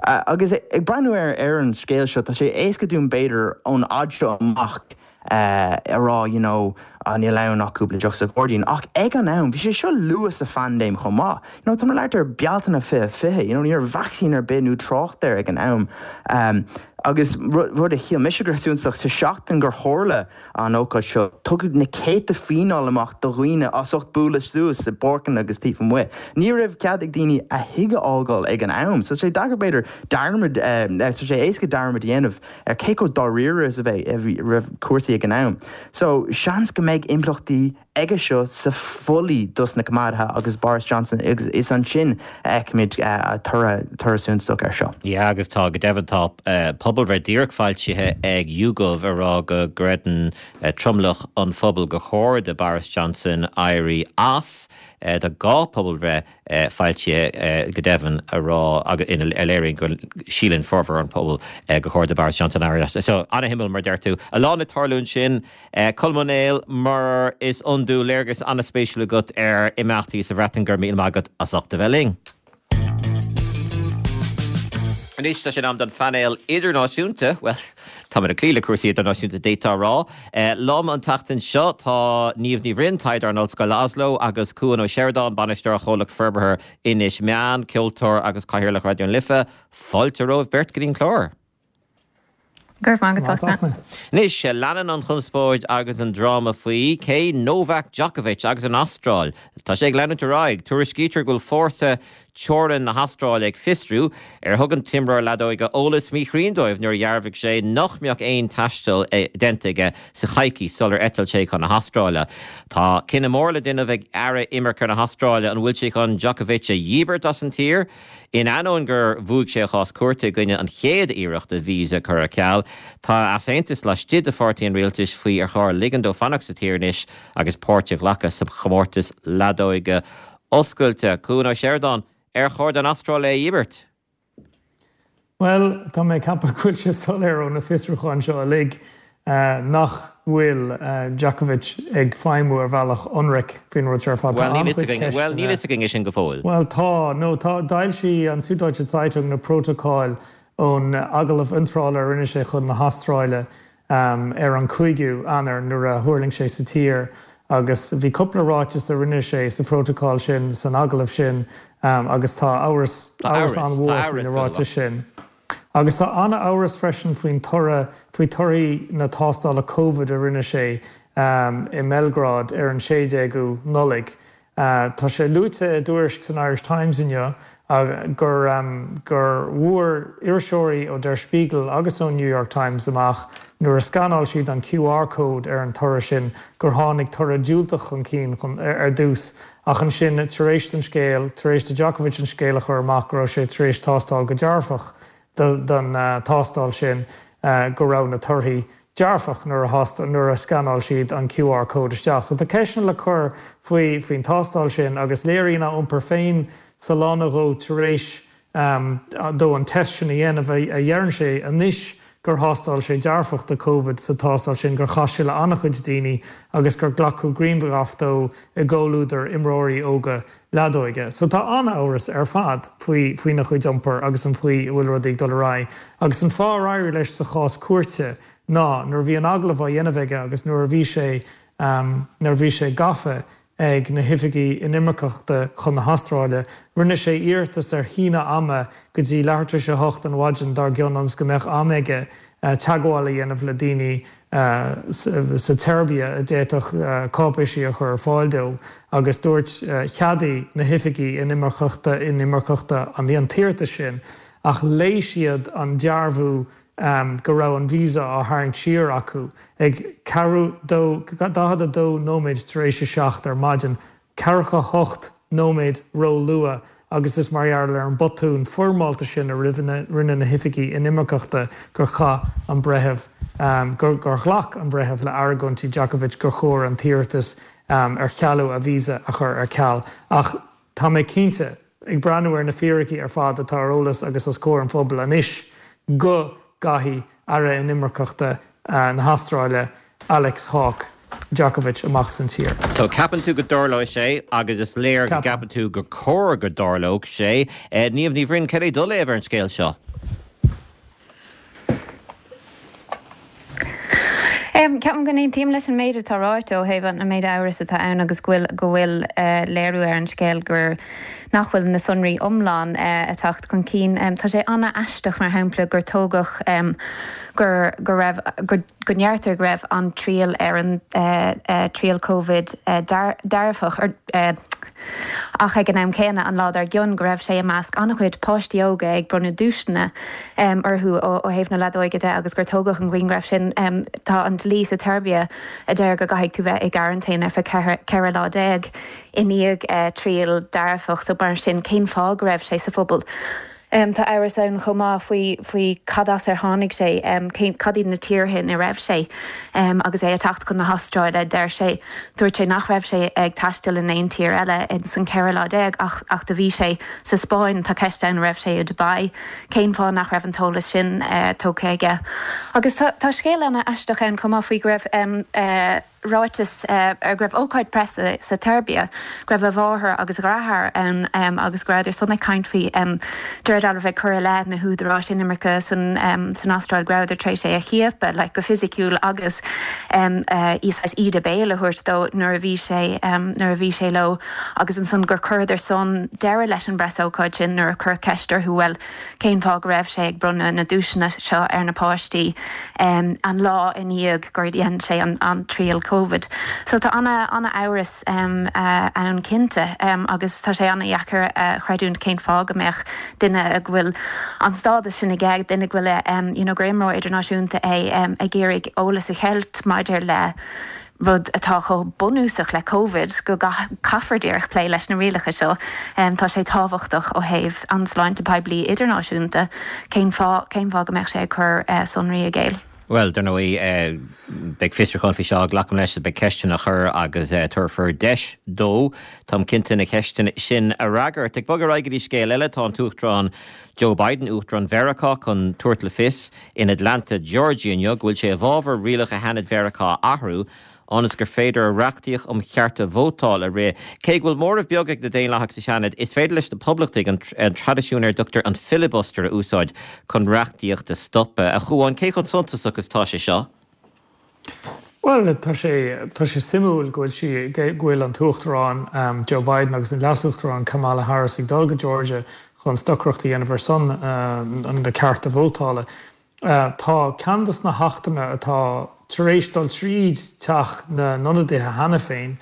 Agus ag breathnú ar ar an scéal seo, tá sé éasca dúinn b'fhéidir ón fhad seo amach, a rá you know ah níl ann ach cúpla deoch sa ghairdín ach ag an am bhí sé seo luath sa phaindéim chomh maith you know tá mé ag labhairt ar Bealtaine 2020 you know ní raibh vacsaín ar bith nó trácht air ag an am um, agus rud a shíl mise gur suntasach sa seachtain gur tharla an ócáid seo tugadh na céadta fíneáil amach do dhaoine as ucht bualadh suas i bpáirceanna agus taobh amuigh. Ní raibh cead ag daoine a thigh a fhágáil ag an am so tá sé deacair b'fhéidir dearmad tá sé éasca dearmad a dhéanamh ar cé chomh dáiríre is a bhí raibh cúrsaí ag an am. So, seans go mbeidh impleachtaí aige seo sa pholaitíocht dos na Coimeádaithe agus Boris Johnson agus is ansin a fheicfimid toradh toradh suntasach air seo. Yeah agus tá, go deimhin tá pobalbhreith díreach foilsithe ag YouGov ag rá go gcreideann tromlach an phobail gur chóir do Boris Johnson éirí as. Tá 2 pobalbhreith foilsithe go deimhin a rá agus ina a léiríonn go síleann formhór an phobail gur chóir do Boris Johnson éirí as. So, ana-shuimiúil mar a deir tú. A lán ag tarlú ansin. Colm Ó Néill, mar is iondúil, léargas ana-spéisiúil agat ar imeachtaí sa Bhreatain. Go raibh míle maith agat as ucht a bheith linn. Anois tá sé in am don phainéal idirnáisiúnta, bhuel, táimid ag cloí le cúrsaí idirnáisiúnta d'fhéadfá a rá. Liom an tseachtain seo tá Niamh Ní Bhroin, taighdeoir in Ollscoil Oslo, agus Cuan Ó Seireadáin, bainisteoir Chomhlacht Forbartha Inis Meáin, ceoltóir agus Cathaoirleach Raidió na Life. Fáilte romhaibh beirt go dtí an clár. Go raibh maith agat, Fachtna. Anois, leanann an chonspóid agus an dráma faoi cé Novak Djokovic agus an Astráil. Tá sé ag leanúint ar aghaidh. Tuairiscítear go bhfuil fórsa teorann na hAstráile ag fiosrú ar thug an t-imreoir leadóige eolas míchruinn dóibh nuair a dhearbhaigh sé nach mbeadh aon taisteal déanta aige sa choicís sular eitil sé chun na hAstráile. Tá cinneadh mór le déanamh ag Aire Imirce na hAstráile an bhfuil sé chun Djokovic a dhíbirt as an tír. In ainneoin gur bhuaigh sé a chás cúirte i gcoinne an chéad iarracht a visa a chur ar ceal, tá easaontas laistigh de pháirtí an rialtais faoi ar chóir ligean dó fanacht sa tír anois agus páirt a ghlacadh sa chomórtas leadóige oscailte. Cuan Ó Seireadáin, Ar chóir don Astráil é a dhíbirt? Bhuel, tá mé ag ceapadh go bhfuil sé soiléir ó na fiosrúcháin seo uilig nach bhfuil Djokovic ag feidhmiú ar bhealach ionraic faoin rud seo ar fad. Tá an-chuid ceisteanna. Bhuel, níl fhios againn é sin go fóill. Bhuel, tá. No, tá. D'fhoilsigh an Süddeutsche Zeitung na prótocáil ón agallamh iontrála a rinne sé chun na hAstráile ar an 5ú Eanáir nuair a thuirling sé sa tír agus bhí cúpla ráiteas a rinne sé sa phrótocál sin, san agallamh sin agus tá amhras, amhras an-mhór faoi na ráitis sin. Agus tá an-amhras freisin faoin toradh, faoi torthaí na tástála Covid a rinne sé i mBeilgrád ar an 16ú Nollaig. Tá sé luaite i dtuairisc san Irish Times inniu gur gur bhfuair iriseoirí ó Der Spiegel agus ón New York Times amach nuair a scanáil siad an QR code ar an toradh sin gur tháinig toradh diúltach chun cinn ar dtús ach ansin tar éis don scéal, tar éis do Djokovic an scéal a chur amach go raibh sé tar éis tástáil go dearfach don tástáil sin, go raibh na torthaí dearfach nuair a nuair a scanáil siad an QR code isteach. So tá ceisteanna le cur faoi faoin tástáil sin agus léiríonn a iompar féin sa lá nó dhó tar éis dó an test sin a dhéanamh, a dheireann sé anois. gur thástáil sé dearfach do Covid sa tástáil sin, gur chas sé le an-chuid daoine agus gur glacadh grianghraf dó i gcomhluadar imreoirí óga leadóige. So tá an-amhras ar fad faoi faoina chuid iompair agus an chaoi a bhfuil rudaí ag dul ar aghaidh. Agus an fáth ar éirigh leis sa chás cúirte ná nuair a bhí an agallamh á dhéanamh aige agus nuair a bhí sé nuair a bhí sé gafa ag na hoifigigh inimirceachta chun na hAstráile, rinne sé iarratas ar shíneadh ama go dtí leathuair tar éis a hocht an mhaidin dár gcionn ionas go mbeadh am aige teagmháil a dhéanamh le daoine sa tSeirbia a d'fhéadfadh cáipéisí a chur ar fáil dó agus dúirt cheadaigh na hoifigigh inimirceachta inimirceachta an t-iarratas sin ach léigh siad an dearbhú go raibh an visa á tharraingt siar acu ag ceathrú dó, 42 nóiméad tar éis a seacht ar maidin, ceathracha hocht nóiméad ró-luath agus is mar gheall ar an botún foirmeálta sin a rinne na hoifigigh inimirceachta gur chaith an breitheamh, gur ghlac an breitheamh le argóintí Djokovic gur chóir an t-iarratas ar chealú a visa a chur ar ceal. Ach tá mé cinnte. Ag breathnú ar na fíricí ar fad atá ar eolas agus os comhair an phobail anois, go gcaithfidh Aire Inimirceachta na hAstráile, Alex Hawke, Djokovic amach as an tír. So ceapann tú go dtarlóidh sé agus is léir go gceapann tú gur cóir go dtarlódh sé. Niamh Ní Bhroin, cad é do léamh ar an scéal seo? Ceapaim go n-aontaím leis an méid atá ráite ó thaobh an méid amhras atá ann agus go bhfuil go bhfuil léiriú ar an scéal gur nach bhfuil na sonraí iomlán ag teacht chun cinn. Tá sé an-aisteach mar shampla gur tógadh gur go raibh go go ndeirtear go raibh an triail ar an triail Covid dearfach ach ag an am céanna an lá dár gcionn go raibh sé i measc an-chuid páistí óga ag bronnadh duaiseanna orthu ó thaobh na leadóige de agus gur tógadh an grianghraf sin. Tá an dlí sa tSeirbia a deir go gcaithfidh tú bheith i gcearantéin ar feadh 14 lá i ndiaidh triail dearfach so mar sin cén fáth go raibh sé sa phobal? Tá amhras ann chomh maith faoi faoi cad as ar tháinig sé, cén, cad iad na tíortha ina raibh sé agus é ag teacht chun na hAstráile. Deir sé, dúirt sé nach raibh sé ag taisteal in aon tír eile ins an 14 lá ach ach do bhí sé sa Spáinn. Tá ceist ann an raibh sé i Dubai. Cén fáth nach raibh an t-eolas sin tógtha aige? Agus tá tá scéal ana-aisteach ann chomh maith faoi go raibh ráiteas go raibh ócáid preasa sa tSeirbia, go raibh a mháthair agus a dheartháir ann agus go rabhadar san ag caint faoi, de réir dealraimh ag cur i leith na húdaráis inimirce san Astráil go rabhadar tar éis é a chiapadh like go fisiciúil agus saghas íde béil a thabhairt dó nuair a bhí sé nuair a bhí sé leo agus ansan gur chuireadar san deireadh leis an bpreasócáid sin nuair a cuireadh ceist orthu bhuel cén fáth go raibh sé ag bronnadh na nduaiseanna seo ar na páistí an lá i ndiaidh gur dhein sé an triail Covid. So tá ana-amhras ann cinnte agus tá sé ana-dheacair a chreidiúint cén fáth go mbeadh duine go bhfuil an stádas sin aige, duine go bhfuil you know gur imreoir idirnáisiúnta é ag iarraidh eolas a cheilt maidir le rud atá chomh bunúsach le Covid, go gcaithfear díreach plé leis na rialacha seo. Tá sé tábhachtach ó thaobh an sláinte poiblí idirnáisiúnta. Cén fáth, cén fáth go mbeadh sé ag cur sonraí i gcéill? Bhuel, dar ndóigh, beidh fiosrúchán faoi seo, glacaim leis, beidh ceisteanna á chur agus tabharfar deis dó, táim cinnte, na ceisteanna sin a fhreagairt. Ag bogadh ar aghaidh go dtí scéal eile, tá an tUachtarán Joe Biden, Uachtarán Mheiriceá, chun tabhairt le fios in Atlanta, Georgia inniu go bhfuil sé i bhfabhar rialacha Sheanad Mheiriceá a athrú ionas gur féidir a reachtaíocht um chearta vótála a rith. Cé go bhfuil móramh beag ag na Daonlathaigh sa Seanad, is féidir leis na Poblachtaigh an traidisiún ar a dtugtar an filibuster a úsáid chun reachtaíocht a stopadh. A Chuáin, cé chomh suntasach is atá sé seo? Bhuel, tá sé, tá sé suimiúil go bhfuil sí, go bhfuil an tUachtarán Joe Biden agus an Leas-Uachtarán Kamala Harris ag dul go Georgia chun stocaireacht a dhéanamh ar son na cearta vótála. Tá ceann de na hachtanna atá tar éis dul tríd Teach na nIonadaithe cheana féin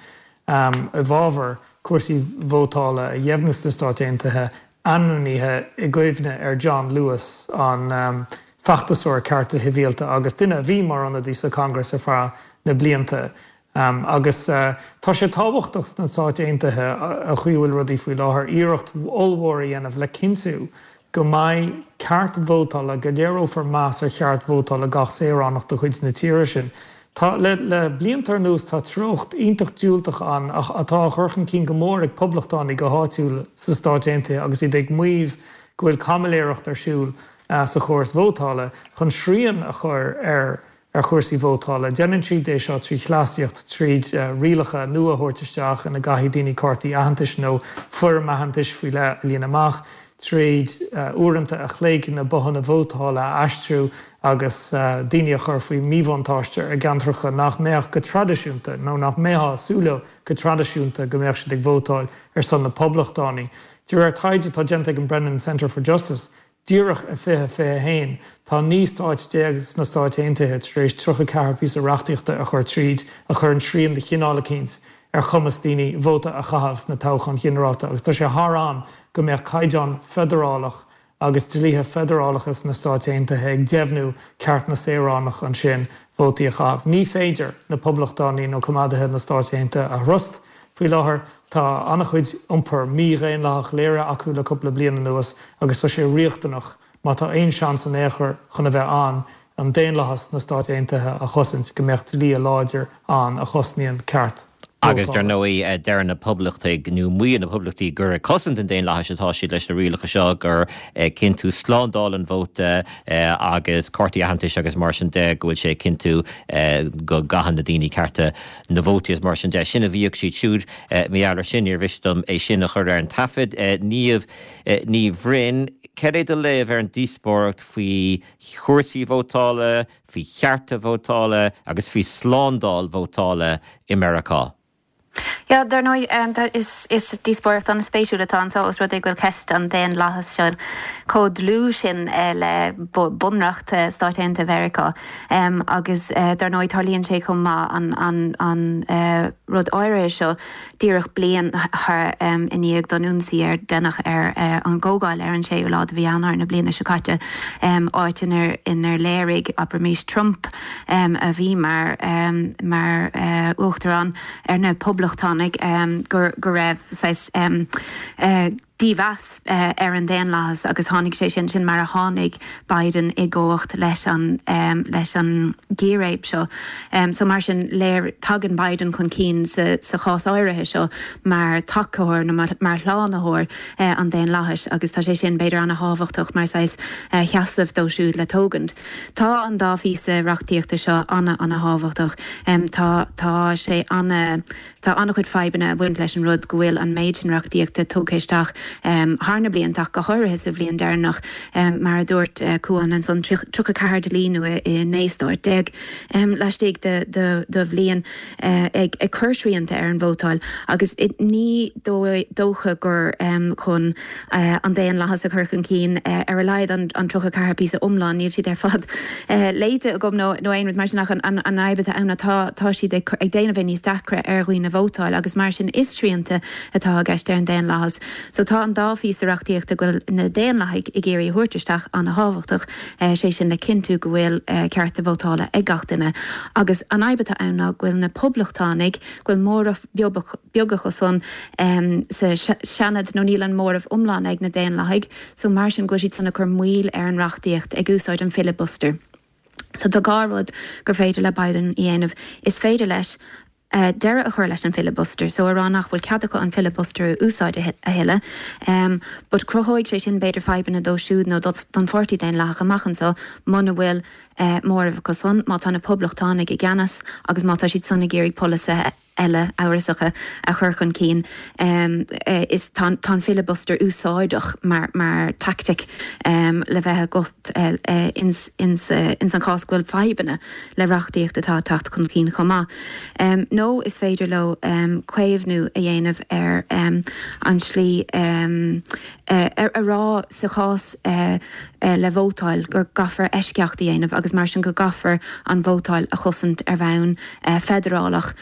i bhfabhar cúrsaí vótála a dheimhniú sna Stáit Aontaithe ainmnithe i gcuimhne ar John Lewis, an feachtasóir cearta sibhialta agus duine a bhí mar ionadaí sa Congress ar feadh na blianta. Agus tá sé tábhachtach sna Stáit Aontaithe, an chaoi a bhfuil rudaí faoi láthair, iarracht ollmhór a dhéanamh le cinntiú go mbeidh ceart vótála, go léireofar meas ar cheart vótála gach saoránach de chuid na tíre sin. Tá, le le blianta anuas, tá treocht iontach diúltach ann atá á chur chun cinn go mór ag poblachtánaigh go háitiúil sna Stáit Aontaithe agus iad ag maíomh go bhfuil caimiléireacht ar siúl. sa chóras vótála chun srian a chur ar ar chúrsaí vótála. Déanann siad é seo trí chleasaíocht, tríd rialacha nua a thabhairt isteach ina gcaithfidh daoine cártaí aitheantais nó foirm aitheantais faoi leith a líonadh amach, tríd uaireanta a chloig na bothanna vótála a aistriú agus daoine a chur faoi mhíbhuntáiste i gceantracha nach mbeadh go traidisiúnta, nó nach mbeifeá ag súil leo go traidisiúnta go mbeadh siad ag vótáil ar son na Poblachtánaí. De réir taighde atá déanta ag an Brennan Center for Justice, Díreach i 2021, tá 19 stáit sna Stáit Aontaithe tar éis 34 píosa reachtaíochta a chur tríd a chuireann srian de chineál eicínt ar chumas daoine vóta a chaitheamh sna toghcháin ghinearálta agus tá sé thar am go mbeadh caighdeán feidearálach agus dlíthe feidearálacha sna Stáit Aontaithe ag deimhniú ceart na saoránach ansin vótaí a chaitheamh. Ní féidir na Poblachtánaigh nó coimeádaithe na Stáit Aontaithe a thrust Faoi láthair, tá an-chuid iompar mídhaonlathach léirithe acu le cúpla bliain anuas agus tá sé riachtanach, má tá aon seans in aon chor chun a bheith ann, an daonlathas sna Stáit Aontaithe a chosaint, go mbeadh dlí láidir ann a chosnaíonn ceart Agus dar vótála. ndóigh, deir na Poblachtaigh, nó maíonn na Poblachtaigh, gur ag cosaint an daonlathais atá siad leis na rialacha seo, gur ag cinntiú slándáil an vóta agus cártaí aitheantais agus mar sin de, go bhfuil sé ag cinntiú go gcaitheann na daoine cearta na vótaí is mar sin de. Sin a mhaígh siad siúd. Mar gheall air sin, níor mhiste dom é sin a chur ar an taifead. Niamh Ní Bhroin, cad é do léamh ar an díospóireacht faoi chúrsaí vótála, faoi chearta vótála agus faoi slándáil vótála i Meiriceá? Yeah, dar ndóigh, is díospóireacht an-spéisiúil atá anseo os rud é go bhfuil ceist an daonlathais seo chomh dlúth sin le bunreacht Stáit Aontaithe Mheiriceá. Agus dar ndóigh tarlaíonn sé chomh maith an an rud áirithe seo díreach bliain i ndiaidh don ionsaí ar deineadh ar an gcomhdháil ar an séú lá de mhí Eanáir na bliana seo caite, áit inar inar léirigh, abraimis, Trump a bhí mar mar uachtarán ar na Poblachtánaigh go go raibh saghas dímheas ar an daonlathas agus tháinig sé sin, sin mar a tháinig Biden i gcumhacht leis an, leis an gcíréib seo. So mar sin, léir, tagann Biden chun cinn sa, sa chás áirithe seo mar tacóir nó mar, mar shlánaitheoir an daonlathais agus tá sé sin b'fhéidir ana-thábhachtach mar saghas sheasamh dó siúd le tógaint. Tá an dá phíosa reachtaíochta seo ana, ana-thábhachtach. Tá, tá sé ana. Tá an-chuid fadhbanna ag baint leis an rud go bhfuil an méid sin reachtaíochta tugtha isteach thar na blianta ach go háirithe sa bhliain deireanach, mar a dúirt Cuán ansan, 34 dlí nua i 19 stáit laistigh de bhliain ag cur srianta ar an vótáil agus ní dócha gur chun an daonlathas a chur chun cinn ar a laghad an 34 píosa iomlán, níl siad ar fad léite agam nó aon rud mar sin ach an fhadhb atá ann ná tá siad ag déanamh é níos deacra ar dhaoine vótáil agus mar sin is srianta atá i gceist ar an daonlathas. So tá an dá phíosa reachtaíochta go bhfuil na Daonlathaigh ag iarraidh a thabhairt isteach ana-thábhachtach, sé sin le cinntiú go bhfuil cearta vótála ag gach duine agus an fhadhb atá ann ná go bhfuil na Poblachtánaigh, go bhfuil móramh beag acu san sa Seanad nó níl an móramh iomlán ag na Daonlathaigh so mar sin go bhfuil siad san ag cur moill ar an reachtaíocht ag úsáid an filibuster. So tá dhá rud gur féidir le Biden a dhéanamh. Is féidir leis deireadh a chur leis an filibuster so a rá nach bhfuil cead acu an filibuster a úsáid a thuilleadh but cruthóidh sé sin b'fhéidir fadhbanna dó siúd nó don Pháirtí Daonlathach amach anseo muna bhfuil móramh acu san, má tá na Poblachtánaigh i gceannas agus má tá siad san ag iarraidh polasaithe eile amhrasacha a chur chun cinn. Is tá an filibuster úsáideach mar mar tactic le bheith agat ins ins an chás go bhfuil fadhbanna le reachtaíocht atá ag teacht chun cinn chomh maith. Nó is féidir leo caomhnú a dhéanamh ar an slí a rá sa chás le vótáil go gcaithfear eisceacht a dhéanamh agus mar sin go gcaithfear an vótáil a chosaint ar bhonn feidearálach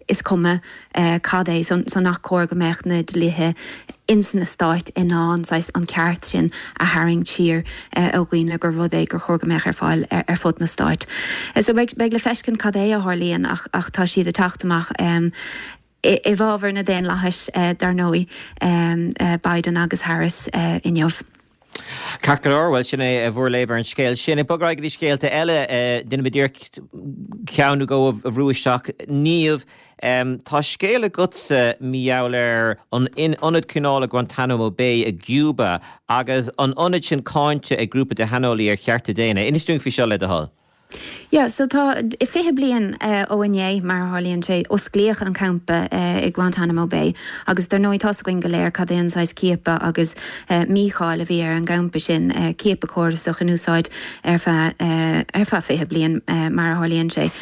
is cuma cad é so nach cóir go mbeadh na dlíthe ins na stáit in ann saghas an ceart sin a tharraingt siar ó dhaoine gur rud é gur chóir go mbeadh ar fáil ar fud na stáit. So beidh le feiscint cad é a tharlaíonn ach tá siad ag teacht amach i bhfabhar na daonlathais, dar ndóigh, Biden agus Harris inniu. Ceart go leor, bhuel sin é bhur léamh ar an scéal sin. Ag bogadh ar aghaidh go dtí scéalta eile, déanfaidh muid iarracht ceann nó dhó a bhrú isteach. Niamh, tá scéal agatsa mar gheall ar an ionad coinneála Guantanamo Bay i gCuba agus an ionad sin cáinte ag grúpa de shaineolaí ar chearta daonna. Inis dúinn faoi seo le do thoil. Yeah, so tá 20 bliain ó inné, mar a tharlaíonn sé, osclaíodh an campa i Guantanamo Bay agus dar ndóigh tá's againn go léir cad é an saghas ciapadh agus mícháil a bhí ar an gcampa sin, ciapadh córasach in úsáid ar feadh ar feadh 20 bliain mar a tharlaíonn sé.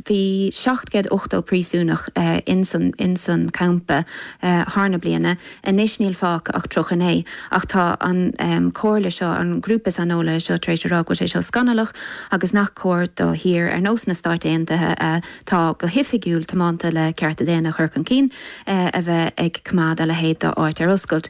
Bhí 780 príosúnach ins an ins an campa thar na bliana. Anois níl fágtha ach 39, ach tá an comhairle seo, an grúpa saineolaithe seo tar éis a rá go bhfuil sé seo scannalach agus nach cóir do thír ar nós na Stáit Aontaithe atá go hoifigiúil tiomanta le cearta daonna a chur chun cinn, a bheith ag coimeád a leithéid d'áit ar oscailt.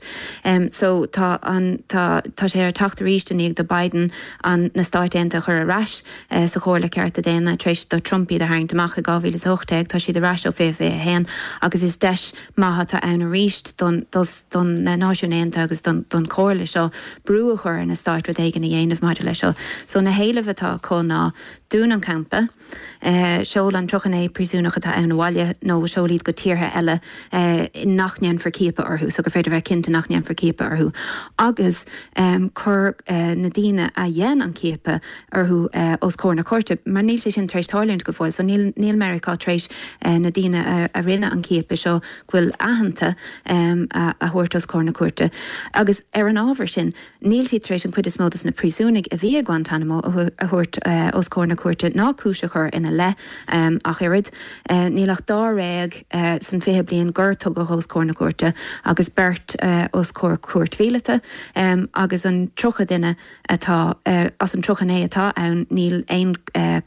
So tá an, tá, tá sé ar teacht arís i ndiaidh do Biden an, na Stáit Aontaithe a chur ar ais sa Chomhairle Cearta Daonna tar éis do Trump iad a tharraingt amach i 2018. Tá siad ar ais ó 2021 agus is deis maith atá ann arís don don na Náisiúin Aontaithe agus don don Chomhairle seo brú a chur ar na stáit rud éigin a dhéanamh maidir leis seo. So na héilimh atá acu ná dún an campa, seol an 39 príosúnach atá ann abhaile nó seol iad go tíortha eile nach ndéanfar ciapadh orthu, so gur féidir bheith cinnte nach ndéanfar ciapadh orthu agus cuir na daoine a dhein an ciapadh orthu os comhair na cúirte, mar níl sé sin tar éis tarlúint go fóill. So níl, níl Meiriceá tar éis na daoine a, a rinne an ciapadh seo, go bhfuil aitheanta, a, a thabhairt os comhair na cúirte. Agus ar an ábhar sin, níl siad tar éis an chuid is mó dos na príosúnaigh a bhí i Guantanamo a, a thabhairt os comhair na cúirte ná cúis a chur ina leith ach oiread. Níl ach dáréag san 20 bliain gur tugadh os comhair na cúirte agus beirt os comhair cúirt mhíleata agus an 30 duine atá, as an 39 atá ann, níl aon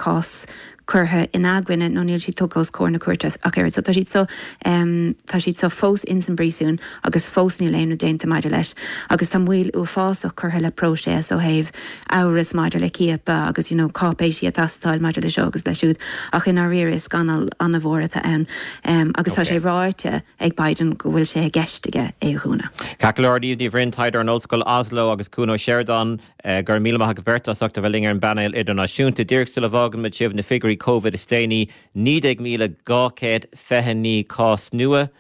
cás curtha ina gcoinne nó níl siad tugtha os comhair na cúirte ach oiread. So tá siad so, tá siad so fós ins an bpríosún agus fós níl aon rud déanta maidir leis. Agus tá moill uafásach curtha le próiseas ó thaobh amhras maidir le ciapadh agus you know cáipéisí ag teastáil maidir le seo agus le siúd. Ach i ndáiríre is scannal an-mhór atá ann agus tá sé ráite, ag Biden go bhfuil sé i gceist aige é a dhúnadh. Ceart go leor, Niamh Ní Bhroin, taighdeoir in Ollscoil Oslo agus Cuan Ó Seireadáin, go raibh míle maith agaibh beirt as ucht a bheith linn ar an bpainéal idirnáisiúnta. Díreach sula bhfágann muid sibh, na figiúirí Covid is déanaí, 19,229 cás nua,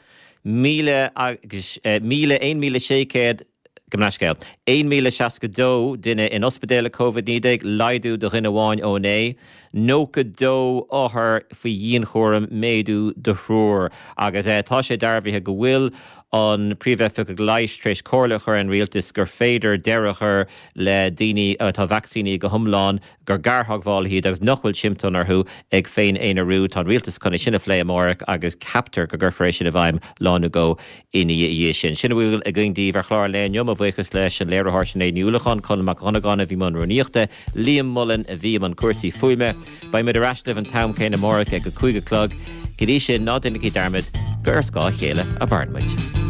1,000 agus, 1,000, 1,600, Gabh mo leithscéal. 1,062 duine in ospidéal le Covid-19, laghdú de dhuine amháin ó inné. 92 othar faoi dhianchúram, méadú de thriúr. Agus tá sé dearbhaithe go bhfuil an Príomhoifigeach Leighis tar éis comhairle a chur ar an Rialtas gur féidir deireadh a chur le daoine atá vacsaínithe go hiomlán, gur gartheagmhálaithe iad agus nach bhfuil siomptóim orthu ag féin-aonarú. Tá an Rialtas chun é sin a phlé amárach agus ceaptar go gcuirfear é sin i bhfeidhm lá nó dhó ina dhiaidh sin. Sin a bhfuil againn daoibh ar chlár an lae inniu. Mo bhuíochas leis an léiritheoir Sinéad Ní Uallacháin, Conall Mac Dhonnagáin a bhí i mbun rúnaíochta, Liam Mullen a bhí i mbun cúrsaí fuaime. Beidh muid ar ais libh an t-am céanna amárach ag a 5 a chlog. Go dtí sin, ná déanaigí dearmad gur ar scáth a chéile a mhaireann muid.